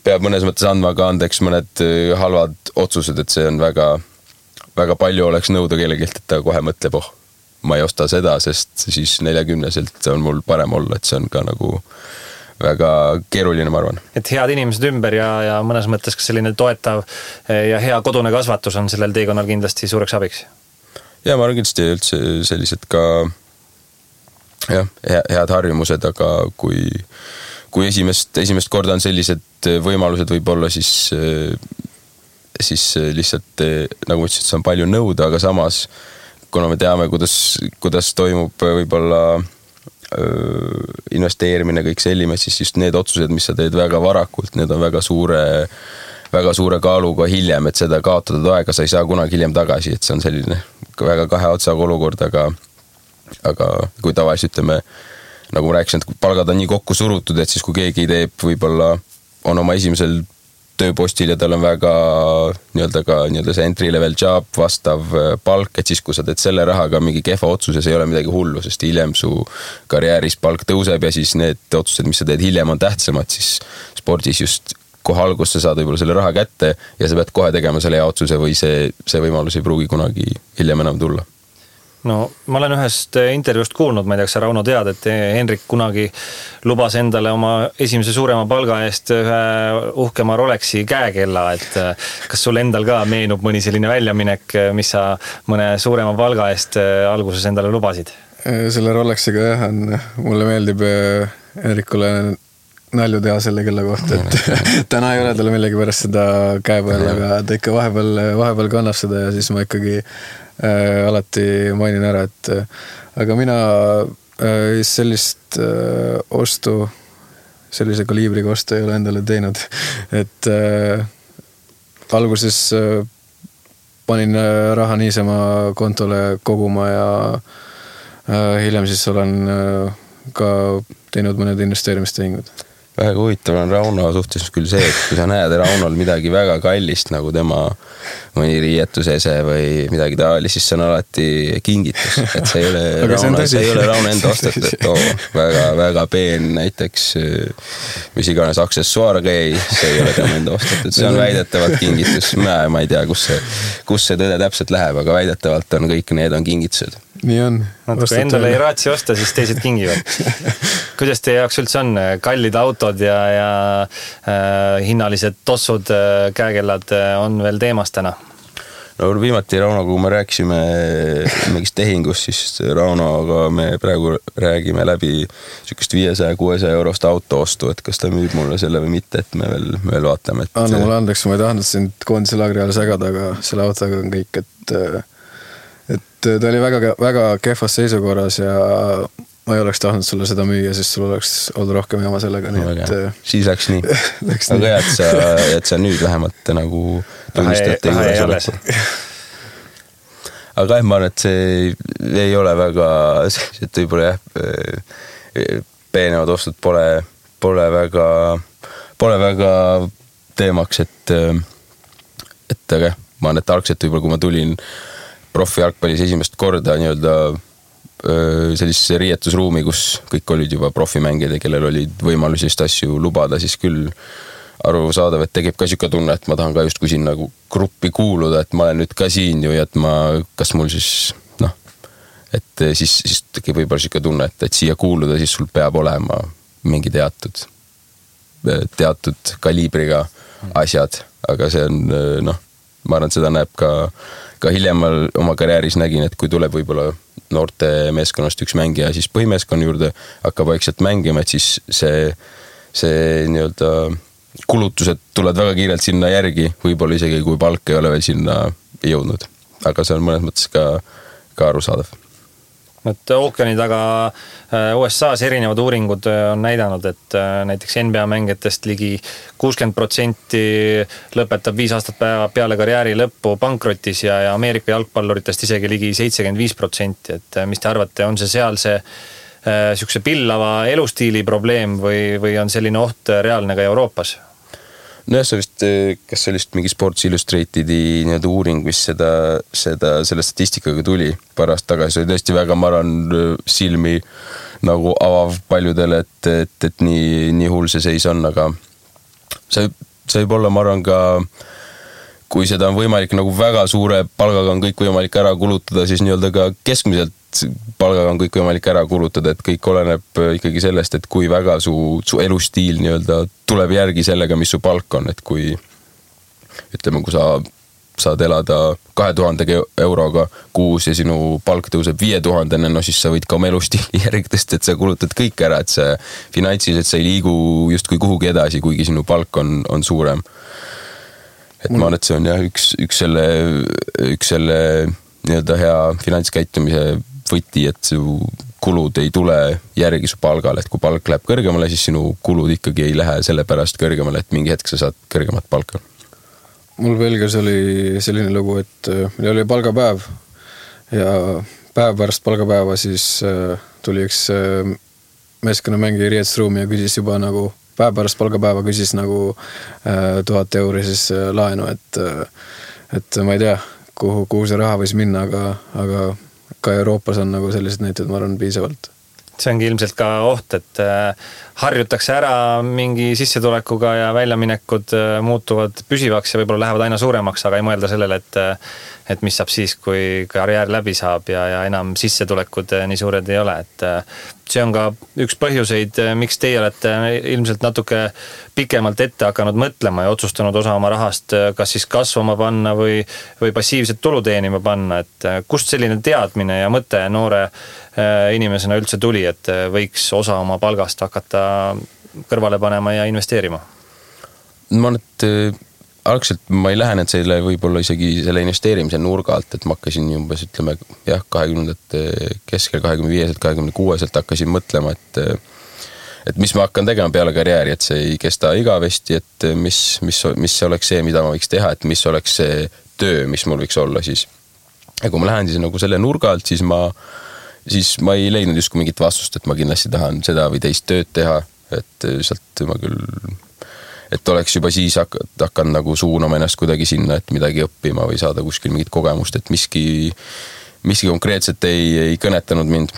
peab mõnes mõttes andma ka andeks mõned halvad otsused, et see on väga, väga palju oleks nõuda kellegilt, et ta kohe mõtleb, ma ei osta seda, sest siis 40-selt on mul parem olla, et see on ka nagu väga keeruline, ma arvan. Et head inimesed ümber ja mõnes mõttes ka selline toetav ja hea kodune kasvatus on sellel teekonnal kindlasti suureks abiks. Ja ma arvan kindlasti üldse sellised ka head harjumused, aga kui kui esimest korda on sellised võimalused võib-olla, siis lihtsalt nagu ma ütlesin, et see on palju nõuda, aga samas kuna me teame, kuidas toimub võib-olla investeerimine, kõik selline, siis just need otsused, mis sa teed väga varakult, need on väga suure kaaluga hiljem, et seda kaotatud aega sa ei saa kunagi hiljem tagasi, et see on selline väga kahe otsaga olukord, aga kui tavaliselt ütleme, nagu ma rääkisin, et palgad on nii kokku surutud, et siis kui keegi teeb võib-olla on oma esimesel tööpostil ja tal on väga nii-öelda see entry level job, vastav palk, et siis kui sa teed selle rahaga mingi kehva otsuses, ei ole midagi hullu, sest hiljem su karjääris palk tõuseb ja siis need otsused, mis sa teed hiljem on tähtsamad, siis spordis just kohe alguses sa saad võib-olla selle raha kätte ja sa pead kohe tegema selle hea otsuse või see võimalus ei pruugi kunagi hiljem enam tulla. No ma olen ühest intervjuust kuulnud, ma ei tea, kas sa Rauno tead, et Henrik kunagi lubas endale oma esimese suurema palga eest ühe uhkema Rolexi käekella, et kas sul endal ka meenub mõni selline väljaminek, mis sa mõne suurema palga eest alguses endale lubasid? Selle Rolexiga jah, mulle meeldib Henrikule nalju teha selle kella kohta, et täna ei ole talle millegi pärast seda käe peal, aga ta ikka vahepeal kannab seda ja siis ma ikkagi alati mainin ära, et aga mina sellist ostu, sellise kaliibriga ostu ei ole endale teinud, et alguses panin raha niisama kontole koguma ja hiljem siis olen ka teinud mõned investeerimistehingud. Väga huvitav on Rauno suhtes küll see, et kui sa näed Raunol midagi väga kallist, nagu tema mõni riietusese või midagi taolist, siis see on alati kingitus, et see ei ole Rauno enda ostetud, et väga peen näiteks mis iganes aksessuaargei, see ei ole tema enda ostetud, see on väidetavalt kingitus, ma ei tea, kus see tõde täpselt läheb, aga väidetavalt on kõik need on kingitused. Nii on. Kui endale ei raatsi osta, siis teised kingivad. Kuidas teie jaoks üldse on kallid autod ja hinnalised tossud, käekellad on veel teemas täna? No viimati Rauno, kui me rääkisime mingist tehingust, siis Raunoga me praegu räägime läbi sükest 500-600 eurost auto ostu, et kas ta müüb mulle selle või mitte, et me veel vaatame. Anna mulle andeks, ma ei tahtnud sind koondise laagri all segada, aga selle autoga on kõik, et ta oli väga kehvas seisukorras ja ma ei oleks tahtnud sulle seda müüa, siis sul oleks olnud rohkem jama sellega. Siis läks nii. Aga et sa nüüd vähemalt nagu tunnistate juures oled. Aga ma arvan, et see ei ole väga, et võib-olla peenevad ostud pole väga teemaks, et aga ma arvan, et algselt võib-olla kui ma tulin profi jalgpallis esimest korda nii-öelda sellisesse riietusruumi, kus kõik olid juba profimängijad ja kellel olid võimalusi just asju lubada, siis küll arusaadav, et tegeb ka siuke tunne, et ma tahan ka just kui siin nagu gruppi kuuluda, et ma olen nüüd ka siin ju ja et kas mul siis et siis tekib võib-olla siuke tunne, et siia kuuluda, siis sul peab olema mingi teatud kaliibriga asjad, aga see on ma arvan, et seda näeb ka hiljemal oma karjääris nägin, et kui tuleb võib-olla noorte meeskonnast üks mängija, siis põhimeeskonna juurde hakkab vaikselt mängima, et siis see nii-öelda kulutused tulevad väga kiirelt sinna järgi, võib-olla isegi kui palk ei ole veel sinna jõudnud. Aga see on mõnes mõttes ka arusaadav. Et ookeani taga USA's erinevad uuringud on näidanud, et näiteks NBA mängijatest ligi 60% lõpetab 5 aastat peale karjääri lõppu pankrotis ja Ameerika jalgpalluritest isegi ligi 75%. Et mis te arvate, on see seal see pillava elustiili probleem või on selline oht reaalne ka Euroopas? No see vist, kas see oli mingi Sports Illustratedi nii-öelda uuring, mis selle statistikaga tuli paar aastat tagasi, see oli tõesti väga, ma arvan, silmi nagu avav paljudele, et nii hull see seis on, aga see võib olla, ma arvan, ka kui seda on võimalik nagu väga suure palgaga on kõik võimalik ära kulutada, siis nii-öelda ka keskmiselt palgaga on kõik võimalik ära kulutada, et kõik oleneb ikkagi sellest, et kui väga su elustiil nii-öelda tuleb järgi sellega, mis su palk on, et kui ütleme, kui sa saad elada 2000 euroga kuus ja sinu palk tõuseb 5000, no siis sa võid ka oma elustiili järgidest, et sa kulutad kõik ära, et see finantsiliselt sa ei liigu justkui kuhugi edasi, kuigi sinu palk on suurem. Et ma arvan, et see on jah üks selle nii-öelda hea finantskäitumise võti, et su kulud ei tule järgi su palgale, et kui palk läheb kõrgemale, siis sinu kulud ikkagi ei lähe selle pärast kõrgemale, et mingi hetk sa saad kõrgemat palka. Mul Belgias oli selline lugu, et meil oli palgapäev ja päev pärast palgapäeva siis tuli üks meeskonnamängija riietusruumi ja küsis juba nagu päev pärast palgapäeva küsis nagu 1000 euri siis laenu, et ma ei tea, kuhu see raha võis minna, aga ka Euroopas on nagu sellised näited, ma arvan, piisavalt. See ongi ilmselt ka oht, et harjutakse ära mingi sissetulekuga ja väljaminekud muutuvad püsivaks ja võib-olla lähevad aina suuremaks, aga ei mõelda sellele, et mis saab siis, kui karjäär läbi saab ja enam sissetulekud nii suured ei ole. Et see on ka üks põhjuseid, miks teie olete ilmselt natuke pikemalt ette hakanud mõtlema ja otsustanud osa oma rahast kas siis kasvama panna või passiivset tulu teenima panna. Et kust selline teadmine ja mõte noore inimesena üldse tuli, et võiks osa oma palgast hakata kõrvale panema ja investeerima? Ma arvan, et algselt ma ei lähenenud selle võib-olla isegi selle investeerimise nurga alt, et ma hakkasin umbes, ütleme, 20 keskel, 25, 26 hakkasin mõtlema, et mis ma hakkan tegema peale karjääri, et see ei kesta igavesti, et mis oleks see, mida ma võiks teha, et mis oleks see töö, mis mul võiks olla siis. Ja kui ma lähen siis nagu selle nurga alt, siis ma ei leidnud justkui mingit vastust, et ma kindlasti tahan seda või teist tööd teha, et sealt ma küll, et oleks juba siis hakkan nagu suunama ennast kuidagi sinna, et midagi õppima või saada kuskil mingit kogemust, et miski konkreetselt ei kõnetanud mind.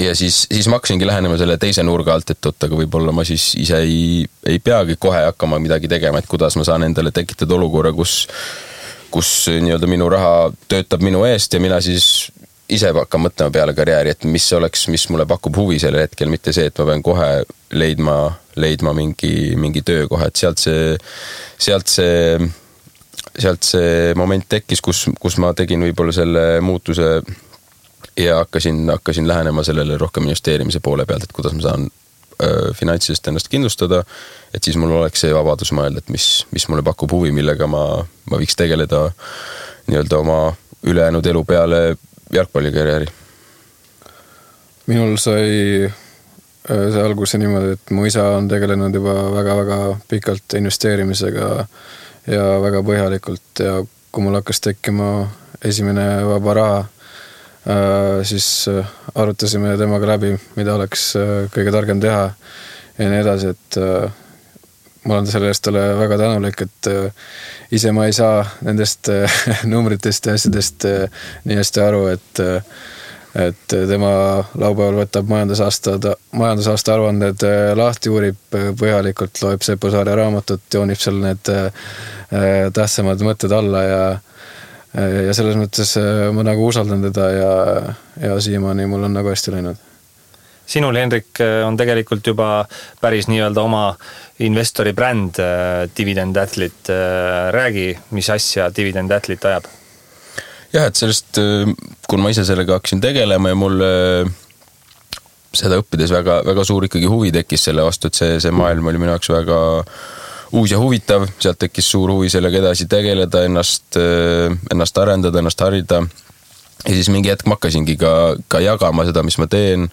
Ja siis ma hakkasingi lähenema selle teise nurga alt, et aga võib-olla ma siis ise ei peagi kohe hakkama midagi tegema, et kuidas ma saan endale tekitada olukorra, kus nii-öelda minu raha töötab minu eest ja mina siis ise hakkan mõtlema peale karjääri, et mis mulle pakub huvi sellel hetkel, mitte see, et ma pean kohe leidma mingi töökoha, et sealt see moment tekkis, kus ma tegin võib-olla selle muutuse ja hakkasin lähenema sellele rohkem investeerimise poole pealt, et kuidas ma saan finantsiliselt ennast kindlustada, et siis mul oleks see vabadus mõelda, et mis mulle pakub huvi, millega ma võiks tegeleda nii-öelda oma ülejäänud elu peale jalgpallikarjääri. Minul sai see alguse niimoodi, et mu isa on tegelenud juba väga-väga pikalt investeerimisega ja väga põhjalikult ja kui mul hakkas tekkima esimene vaba raha, siis arutasime temaga läbi, mida oleks kõige targem teha ja nii edasi, et ma olen selle eest talle väga tänulik, et ise ma ei saa nendest numbritest ja asjadest nii hästi aru, et tema laupäeval võtab majandusaasta aruanded lahti, uurib põhjalikult, loeb Seppo Saare raamatut, joonib seal need tähtsamad mõtted alla ja selles mõttes ma nagu usaldan teda ja siiamaani mul on nagu hästi läinud. Sinul, Henrik, on tegelikult juba päris nii-öelda oma investori bränd Dividend Athlete. Räägi, mis asja Dividend Athlete ajab? Jah, et sellest, kui ma ise sellega hakkasin tegelema ja mul seda õppides väga, väga suur ikkagi huvi tekkis selle vastu, et see maailm oli minu jaoks väga uus ja huvitav, sealt tekkis suur huvi sellega edasi tegeleda, ennast arendada, ennast harida. Ja siis mingi hetk ma hakkasingi ka jagama seda, mis ma teen,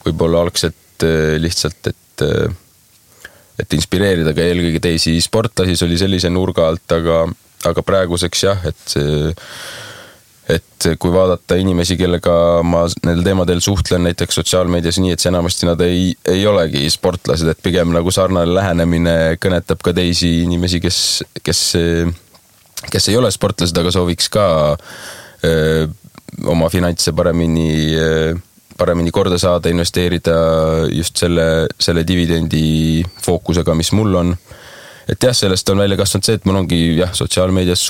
võib-olla algselt lihtsalt, et inspireerida ka eelkõige teisi sportlasi, see oli sellise nurga alt, aga praeguseks jah, et kui vaadata inimesi, kellega ma nendel teemadel suhtlen näiteks sotsiaalmeedias nii, et see enamasti nad ei olegi sportlased, et pigem nagu sarnane lähenemine kõnetab ka teisi inimesi, kes ei ole sportlased, aga sooviks ka oma finantse paremini korda saada, investeerida just selle dividendi fookusega, mis mul on. Et jah, sellest on välja kasvanud see, et mul ongi sotsiaalmeedias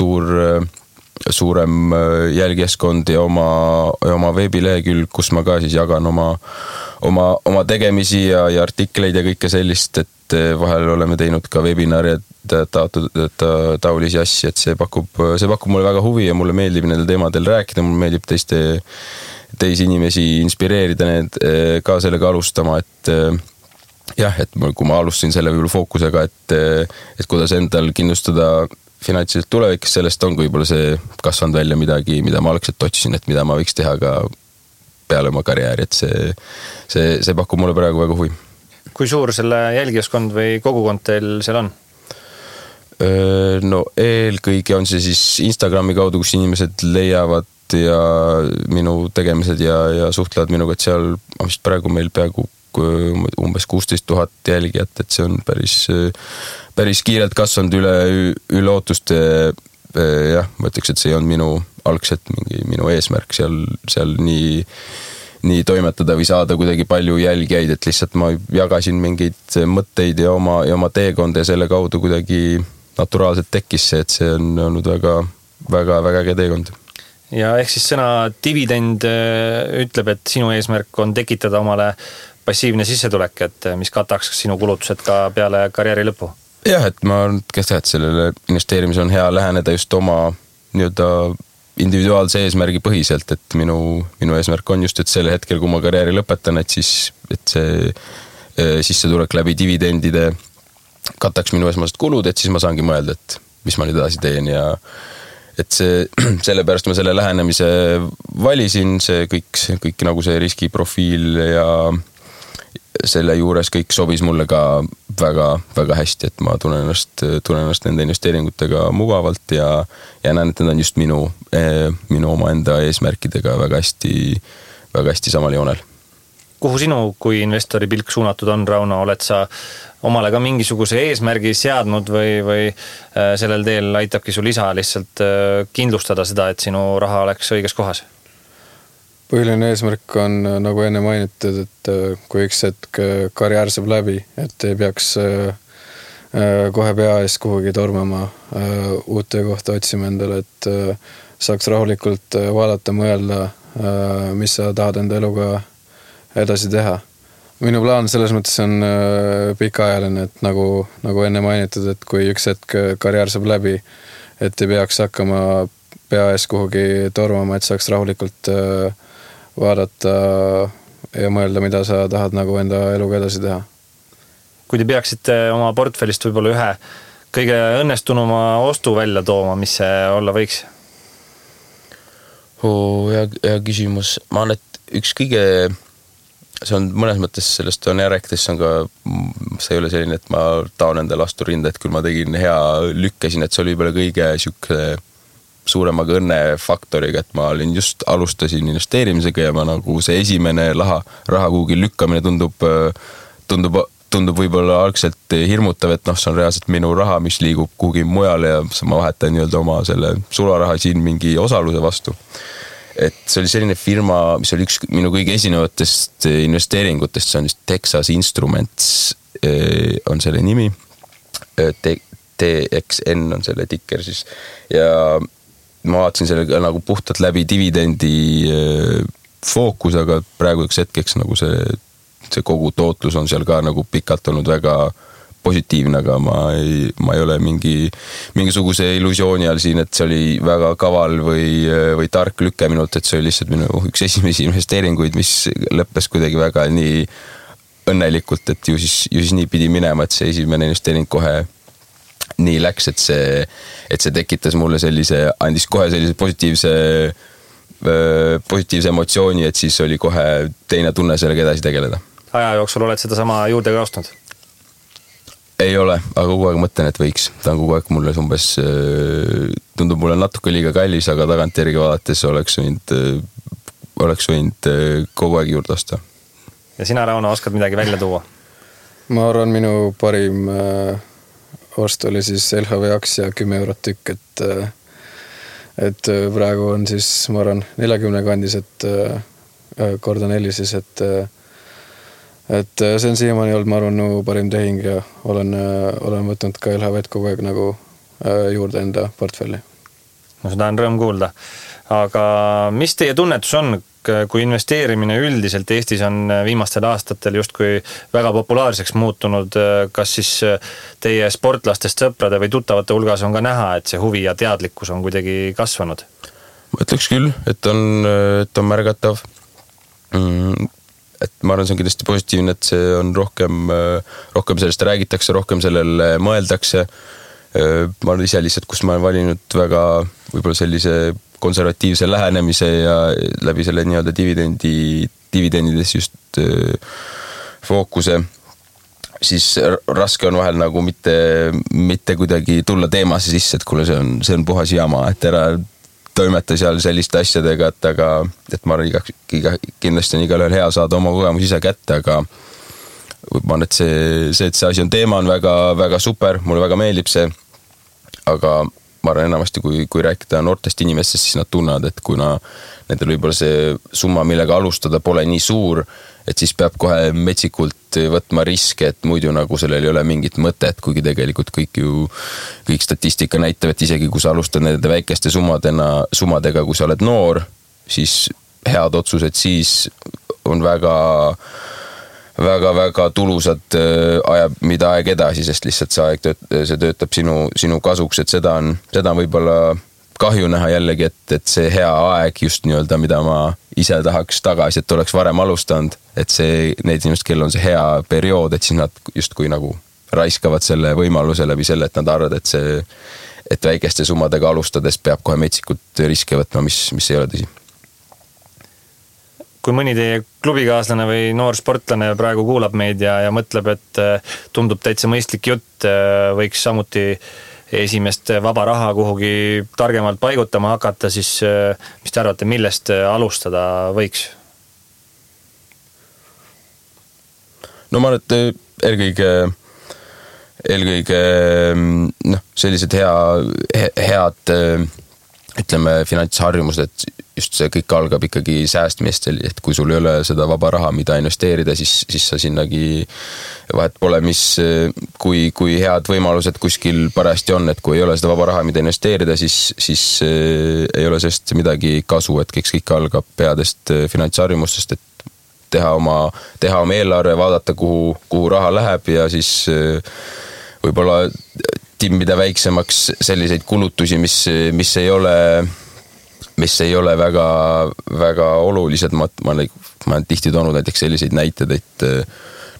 suurem jälgijaskond ja oma veebilehekülg, kus ma ka siis jagan oma tegemisi ja artikleid ja kõike sellist, et vahel oleme teinud ka webinari taolisi asju, et see pakub mulle väga huvi ja mulle meeldib nendel teemadel rääkida, mulle meeldib teisi inimesi inspireerida need ka sellega alustama, et jah, et kui ma alustasin selle võib-olla fookusega, et kuidas endal kindlustada finantsiliselt tulevikus, sellest on võib-olla see kasvanud välja midagi, mida ma algselt otsisin, et mida ma võiks teha ka peale oma karjääri, et see pakub mulle praegu väga huvi. Kui suur selle jälgijaskond või kogukond teil seal on? No eelkõige on see siis Instagrami kaudu, kus inimesed leiavad ja minu tegemised ja suhtlevad minuga, et seal on vist praegu meil peaaegu umbes 16 000 jälgijat, et see on päris kiirelt kasvanud üle ootuste. Jah, ma ütleks, et see on minu algselt minu eesmärk seal nii toimetada või saada kuidagi palju jälgijaid, et lihtsalt ma jagasin mingeid mõtteid ja oma teekonda ja selle kaudu kuidagi naturaalselt tekkis see, et see on olnud väga äge teekond. Ja ehk siis sõna dividend ütleb, et sinu eesmärk on tekitada omale passiivne sissetulek, et mis kataks sinu kulutused ka peale karjääri lõppu? Jah, et ma arvan, et sellele investeerimise on hea läheneda just oma nii-öelda individuaalse eesmärgi põhiselt, et minu eesmärk on just, et selle hetkel, kui ma karjääri lõpetan, et see sissetulek läbi dividendide kataks minu esmased kulud, et siis ma saangi mõelda, et mis ma nüüd edasi teen ja et sellepärast ma selle lähenemise valisin, see kõik nagu see riskiprofiil ja selle juures kõik sobis mulle ka väga hästi, et ma tunnen ennast nende investeeringutega mugavalt ja näen, et need on just minu omaenda eesmärkidega väga hästi samal joonel. Kuhu sinu kui investori pilk suunatud on, Rauno? Oled sa omale ka mingisuguse eesmärgi seadnud või sellel teel aitabki sul isa lihtsalt kindlustada seda, et sinu raha oleks õiges kohas? Põhiline eesmärk on, nagu enne mainitud, et kui üks hetk karjäär saab läbi, et ei peaks kohe pea ees kuhugi tormama uut töökohta otsima endale, et saaks rahulikult vaadata, mõelda, mis sa tahad enda eluga edasi teha. Minu plaan selles mõttes on pikaajaline, et nagu enne mainitud, et kui üks hetk karjäär saab läbi, et ei peaks hakkama pea ees kuhugi tormama, et saaks rahulikult vaadata ja mõelda, mida sa tahad nagu enda eluga edasi teha. Kui te peaksite oma portfellist võib-olla ühe kõige õnnestunuma ostu välja tooma, mis see olla võiks? Hea küsimus. Ma arvan, et üks kõige, see on mõnes mõttes sellest on rääkides, see ei ole selline, et ma taon endale astu rinda, et küll ma tegin hea lükkesin, et see oli võib-olla kõige suuremaga õnnefaktoriga, et ma alustasin investeerimisega ja ma nagu see esimene raha kuhugi lükkamine tundub võib-olla algselt hirmutav, et see on reaalselt minu raha, mis liigub kuhugi mujale ja ma vahetan nii-öelda oma selle sularaha siin mingi osaluse vastu. Et see oli selline firma, mis oli üks minu kõige esinevatest investeeringutest, see on just Texas Instruments on selle nimi, TXN on selle tikker siis ja ma vaatasin selle nagu puhtalt läbi dividendi fookus, aga praegu üks hetkeks nagu see kogu tootlus on seal ka nagu pikalt olnud väga positiivne, aga ma ei ole mingisuguse illusiooni all siin, et see oli väga kaval või tark lükke minult, et see oli lihtsalt minu üks esimesi investeeringuid, mis lõppes kuidagi väga nii õnnelikult, et ju siis nii pidi minema, et see esimene investeering kohe nii läks, et see tekitas mulle andis kohe sellise positiivse emotsiooni, et siis oli kohe teine tunne sellega edasi tegeleda. Aja jooksul oled seda sama juurde ka ostnud? Ei ole, aga kogu aeg mõtlen, et võiks. Ta on kogu aeg mulle umbes, tundub mulle natuke liiga kallis, aga tagantjärgi vaadates oleks võinud kogu aeg juurde osta. Ja sina, Rauno, oskad midagi välja tuua? Ma arvan, minu parim ost oli siis LHV aktsia 10 eurot tükk, et praegu on siis, ma arvan, 40 kandis, et korda 4 siis, et see on siiamaani olnud, ma arvan, parim tehing ja olen võtnud ka LHV-d kogu aeg nagu juurde enda portfelli. No seda on rõõm kuulda. Aga mis teie tunnetus on, kui investeerimine üldiselt Eestis on viimastel aastatel justkui väga populaarseks muutunud, kas siis teie sportlastest, sõprade või tuttavate hulgas on ka näha, et see huvi ja teadlikkus on kuidagi kasvanud? Ma ütleks küll, et on märgatav. Et ma arvan, see on kindlasti positiivne, et see on rohkem sellest räägitakse, rohkem sellele mõeldakse. Ma olen ise lihtsalt, kus ma olen valinud väga võib-olla sellise konservatiivse lähenemise ja läbi selle nii-öelda dividendides just fookuse, siis raske on vahel nagu mitte kuidagi tulla teemasse sisse, et kuule, see on puhas jama, et ära toimeta seal selliste asjadega, et ma arvan, kindlasti on igalühel hea saada oma kogemus ise kätte, aga ma arvan, et see asi on teema, on väga, väga super, mulle väga meeldib see, aga ma arvan enamasti, kui rääkida noortest inimestest, siis nad tunnevad, et kuna nendel võib-olla see summa, millega alustada, pole nii suur, et siis peab kohe metsikult võtma riske, et muidu nagu sellel ei ole mingit mõtet, kuigi tegelikult kõik statistika näitab, et isegi kui sa alustad nende väikeste summadega, kui sa oled noor, siis head otsused siis on väga tulusad mida aeg edasi, sest lihtsalt see töötab sinu kasuks, et seda on võib-olla kahju näha jällegi, et see hea aeg just nii-öelda, mida ma ise tahaks tagasi, et oleks varem alustanud, et need inimesed, kellel on see hea periood, et siis nad justkui nagu raiskavad selle võimaluse läbi selle, et nad arvavad, et väikeste summadega alustades peab kohe metsikult riske võtma, mis ei ole tõsi. Kui mõni teie klubikaaslane või noor sportlane praegu kuulab meid ja mõtleb, et tundub täitsa mõistlik jutt, võiks samuti esimest vaba raha kuhugi targemalt paigutama hakata, siis mis te arvate, millest alustada võiks? No ma arvan, et eelkõige sellised head ütleme finantsharjumused, et just see kõik algab ikkagi säästmist, et kui sul ei ole seda vaba raha, mida investeerida, siis sa sinnagi vahet pole, kui head võimalused kuskil parajasti on, et kui ei ole seda vaba raha, mida investeerida, siis ei ole sellest midagi kasu, et kõik algab headest finantsharjumustest, et teha oma eelarve, vaadata, kuhu raha läheb ja siis võib-olla timmida väiksemaks selliseid kulutusi, mis ei ole väga, väga olulised. Ma olen tihti toonud näiteks selliseid näited, et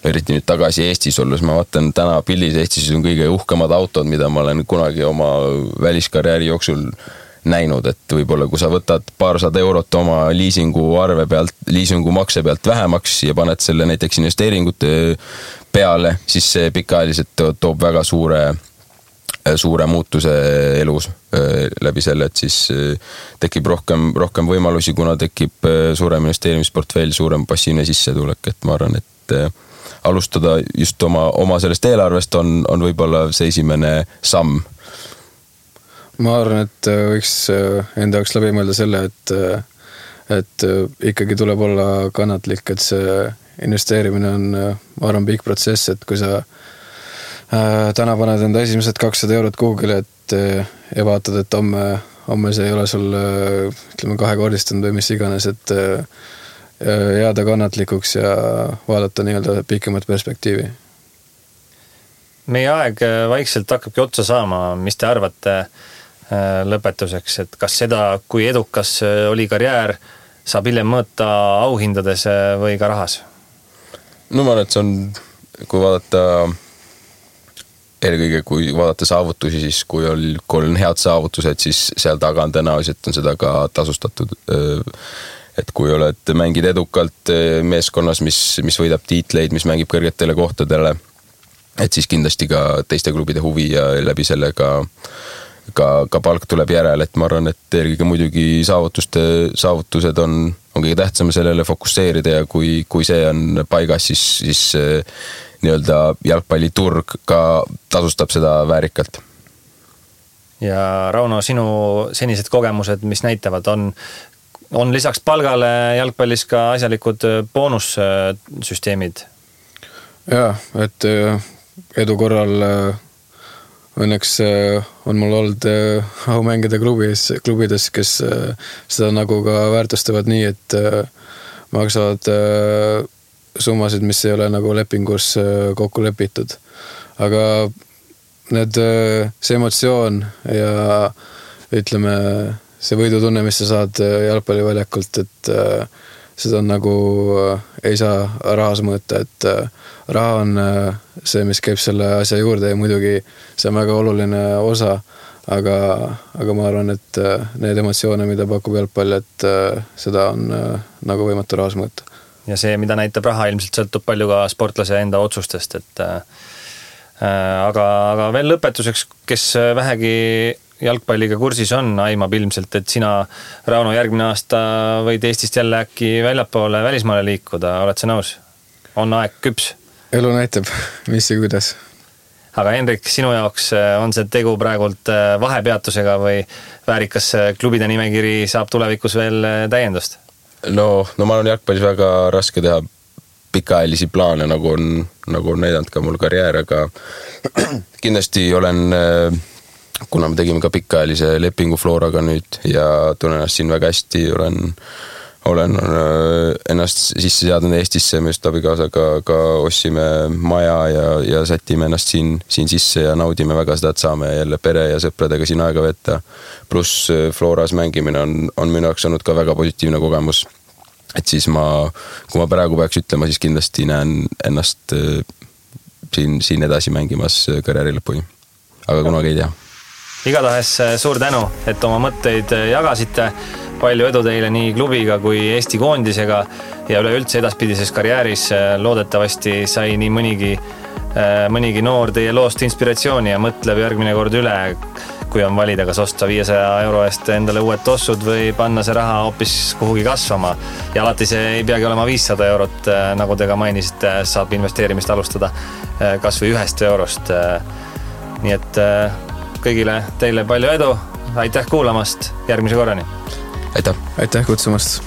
eriti nüüd tagasi Eestis olles, ma vaatan täna pildis Eestis on kõige uhkemad autod, mida ma olen kunagi oma väliskarjääri jooksul näinud, et võib-olla kui sa võtad paarsada eurot oma liisingumakse pealt vähemaks ja paned selle näiteks investeeringute peale, siis see pikaajaliselt toob väga suure muutuse elus läbi selle, et siis tekib rohkem võimalusi, kuna tekib suurem investeerimisportfell, suurem passiivne sissetulek, et ma arvan, et alustada just oma sellest eelarvest on võib-olla see esimene samm. Ma arvan, et võiks enda jaoks läbi mõelda selle, et ikkagi tuleb olla kannatlik, et see investeerimine on, ma arvan, pikk protsess, et kui sa täna paned enda esimesed 200 eurot Google'i, et ja vaatad, et homme see ei ole sul ütleme kahekordistanud või mis iganes, et jääda kannatlikuks ja vaadata nii-öelda pikemat perspektiivi. Meie aeg vaikselt hakkabki otsa saama, mis te arvate lõpetuseks, et kas seda, kui edukas oli karjäär, saab hiljem mõõta auhindades või ka rahas? No ma arvan, et see on, kui vaadata saavutusi, siis kui on head saavutused, siis seal taga on tõenäoliselt on seda ka tasustatud. Et kui mängid edukalt meeskonnas, mis võidab tiitleid, mis mängib kõrgetele kohtadele, et siis kindlasti ka teiste klubide huvi ja läbi selle ka palk tuleb järele, et ma arvan, et eelkõige muidugi saavutused on kõige tähtsam sellele fokusseerida ja kui see on paigas, siis nii-öelda jalgpalliturg ka tasustab seda väärikalt. Ja Rauno, sinu senised kogemused, mis näitavad, on lisaks palgale jalgpallis ka asjalikud boonussüsteemid? Jaa, et edu korral õnneks on mul olnud au mängida klubides, kes seda nagu ka väärtustavad nii, et maksavad summasid, mis ei ole nagu lepingus kokku lepitud. Aga see emotsioon ja ütleme, see võidutunne, mis sa saad jalgpalliväljakult, et seda nagu ei saa rahas mõõta, et raha on see, mis käib selle asja juurde ja muidugi see on väga oluline osa, aga ma arvan, et need emotsioone, mida pakub jalgpall, et seda on nagu võimatu rahas mõõta. Ja see, mida näitab raha, ilmselt sõltub palju ka sportlase enda otsustest, et aga veel lõpetuseks, kes vähegi jalgpalliga kursis on, aimab ilmselt, et sina, Rauno, järgmine aasta võid Eestist jälle äkki väljapoole välismaale liikuda, oled sa nõus? On aeg küps? Elu näitab, mis ja kuidas. Aga Henrik, sinu jaoks on see tegu praegult vahepeatusega või väärikas klubide nimekiri saab tulevikus veel täiendust? No ma olen jalgpallis väga raske teha pikaajalisi plaane, nagu on näidanud ka mul karjäär, aga kindlasti olen, kuna me tegime ka pikaajalise lepingu Floraga nüüd ja tunnen ennast siin väga hästi, olen ennast sisse seadnud Eestisse, me just abikaasaga ka ostsime maja ja sätime ennast siin sisse ja naudime väga seda, et saame jälle pere ja sõpradega siin aega võtta. Pluss Floras mängimine on minu jaoks olnud ka väga positiivne kogemus. Et siis kui ma praegu peaks ütlema, siis kindlasti näen ennast siin edasi mängimas karjääri lõpuni. Aga kunagi ei tea. Igatahes suur tänu, et oma mõtteid jagasite. Palju edu teile nii klubiga kui Eesti koondisega ja üleüldse edaspidises karjääris loodetavasti sai nii mõnigi noor teie loost inspiratsiooni ja mõtleb järgmine kord üle, kui on valida, kas osta 500 euro eest endale uued tossud või panna see raha hoopis kuhugi kasvama. Ja alati see ei peagi olema 500 eurot, nagu te ka mainisite, saab investeerimist alustada kas või 1 eurost. Nii et kõigile teile palju edu, aitäh kuulamast, järgmise korrani! Aitäh! Aitäh kutsumast!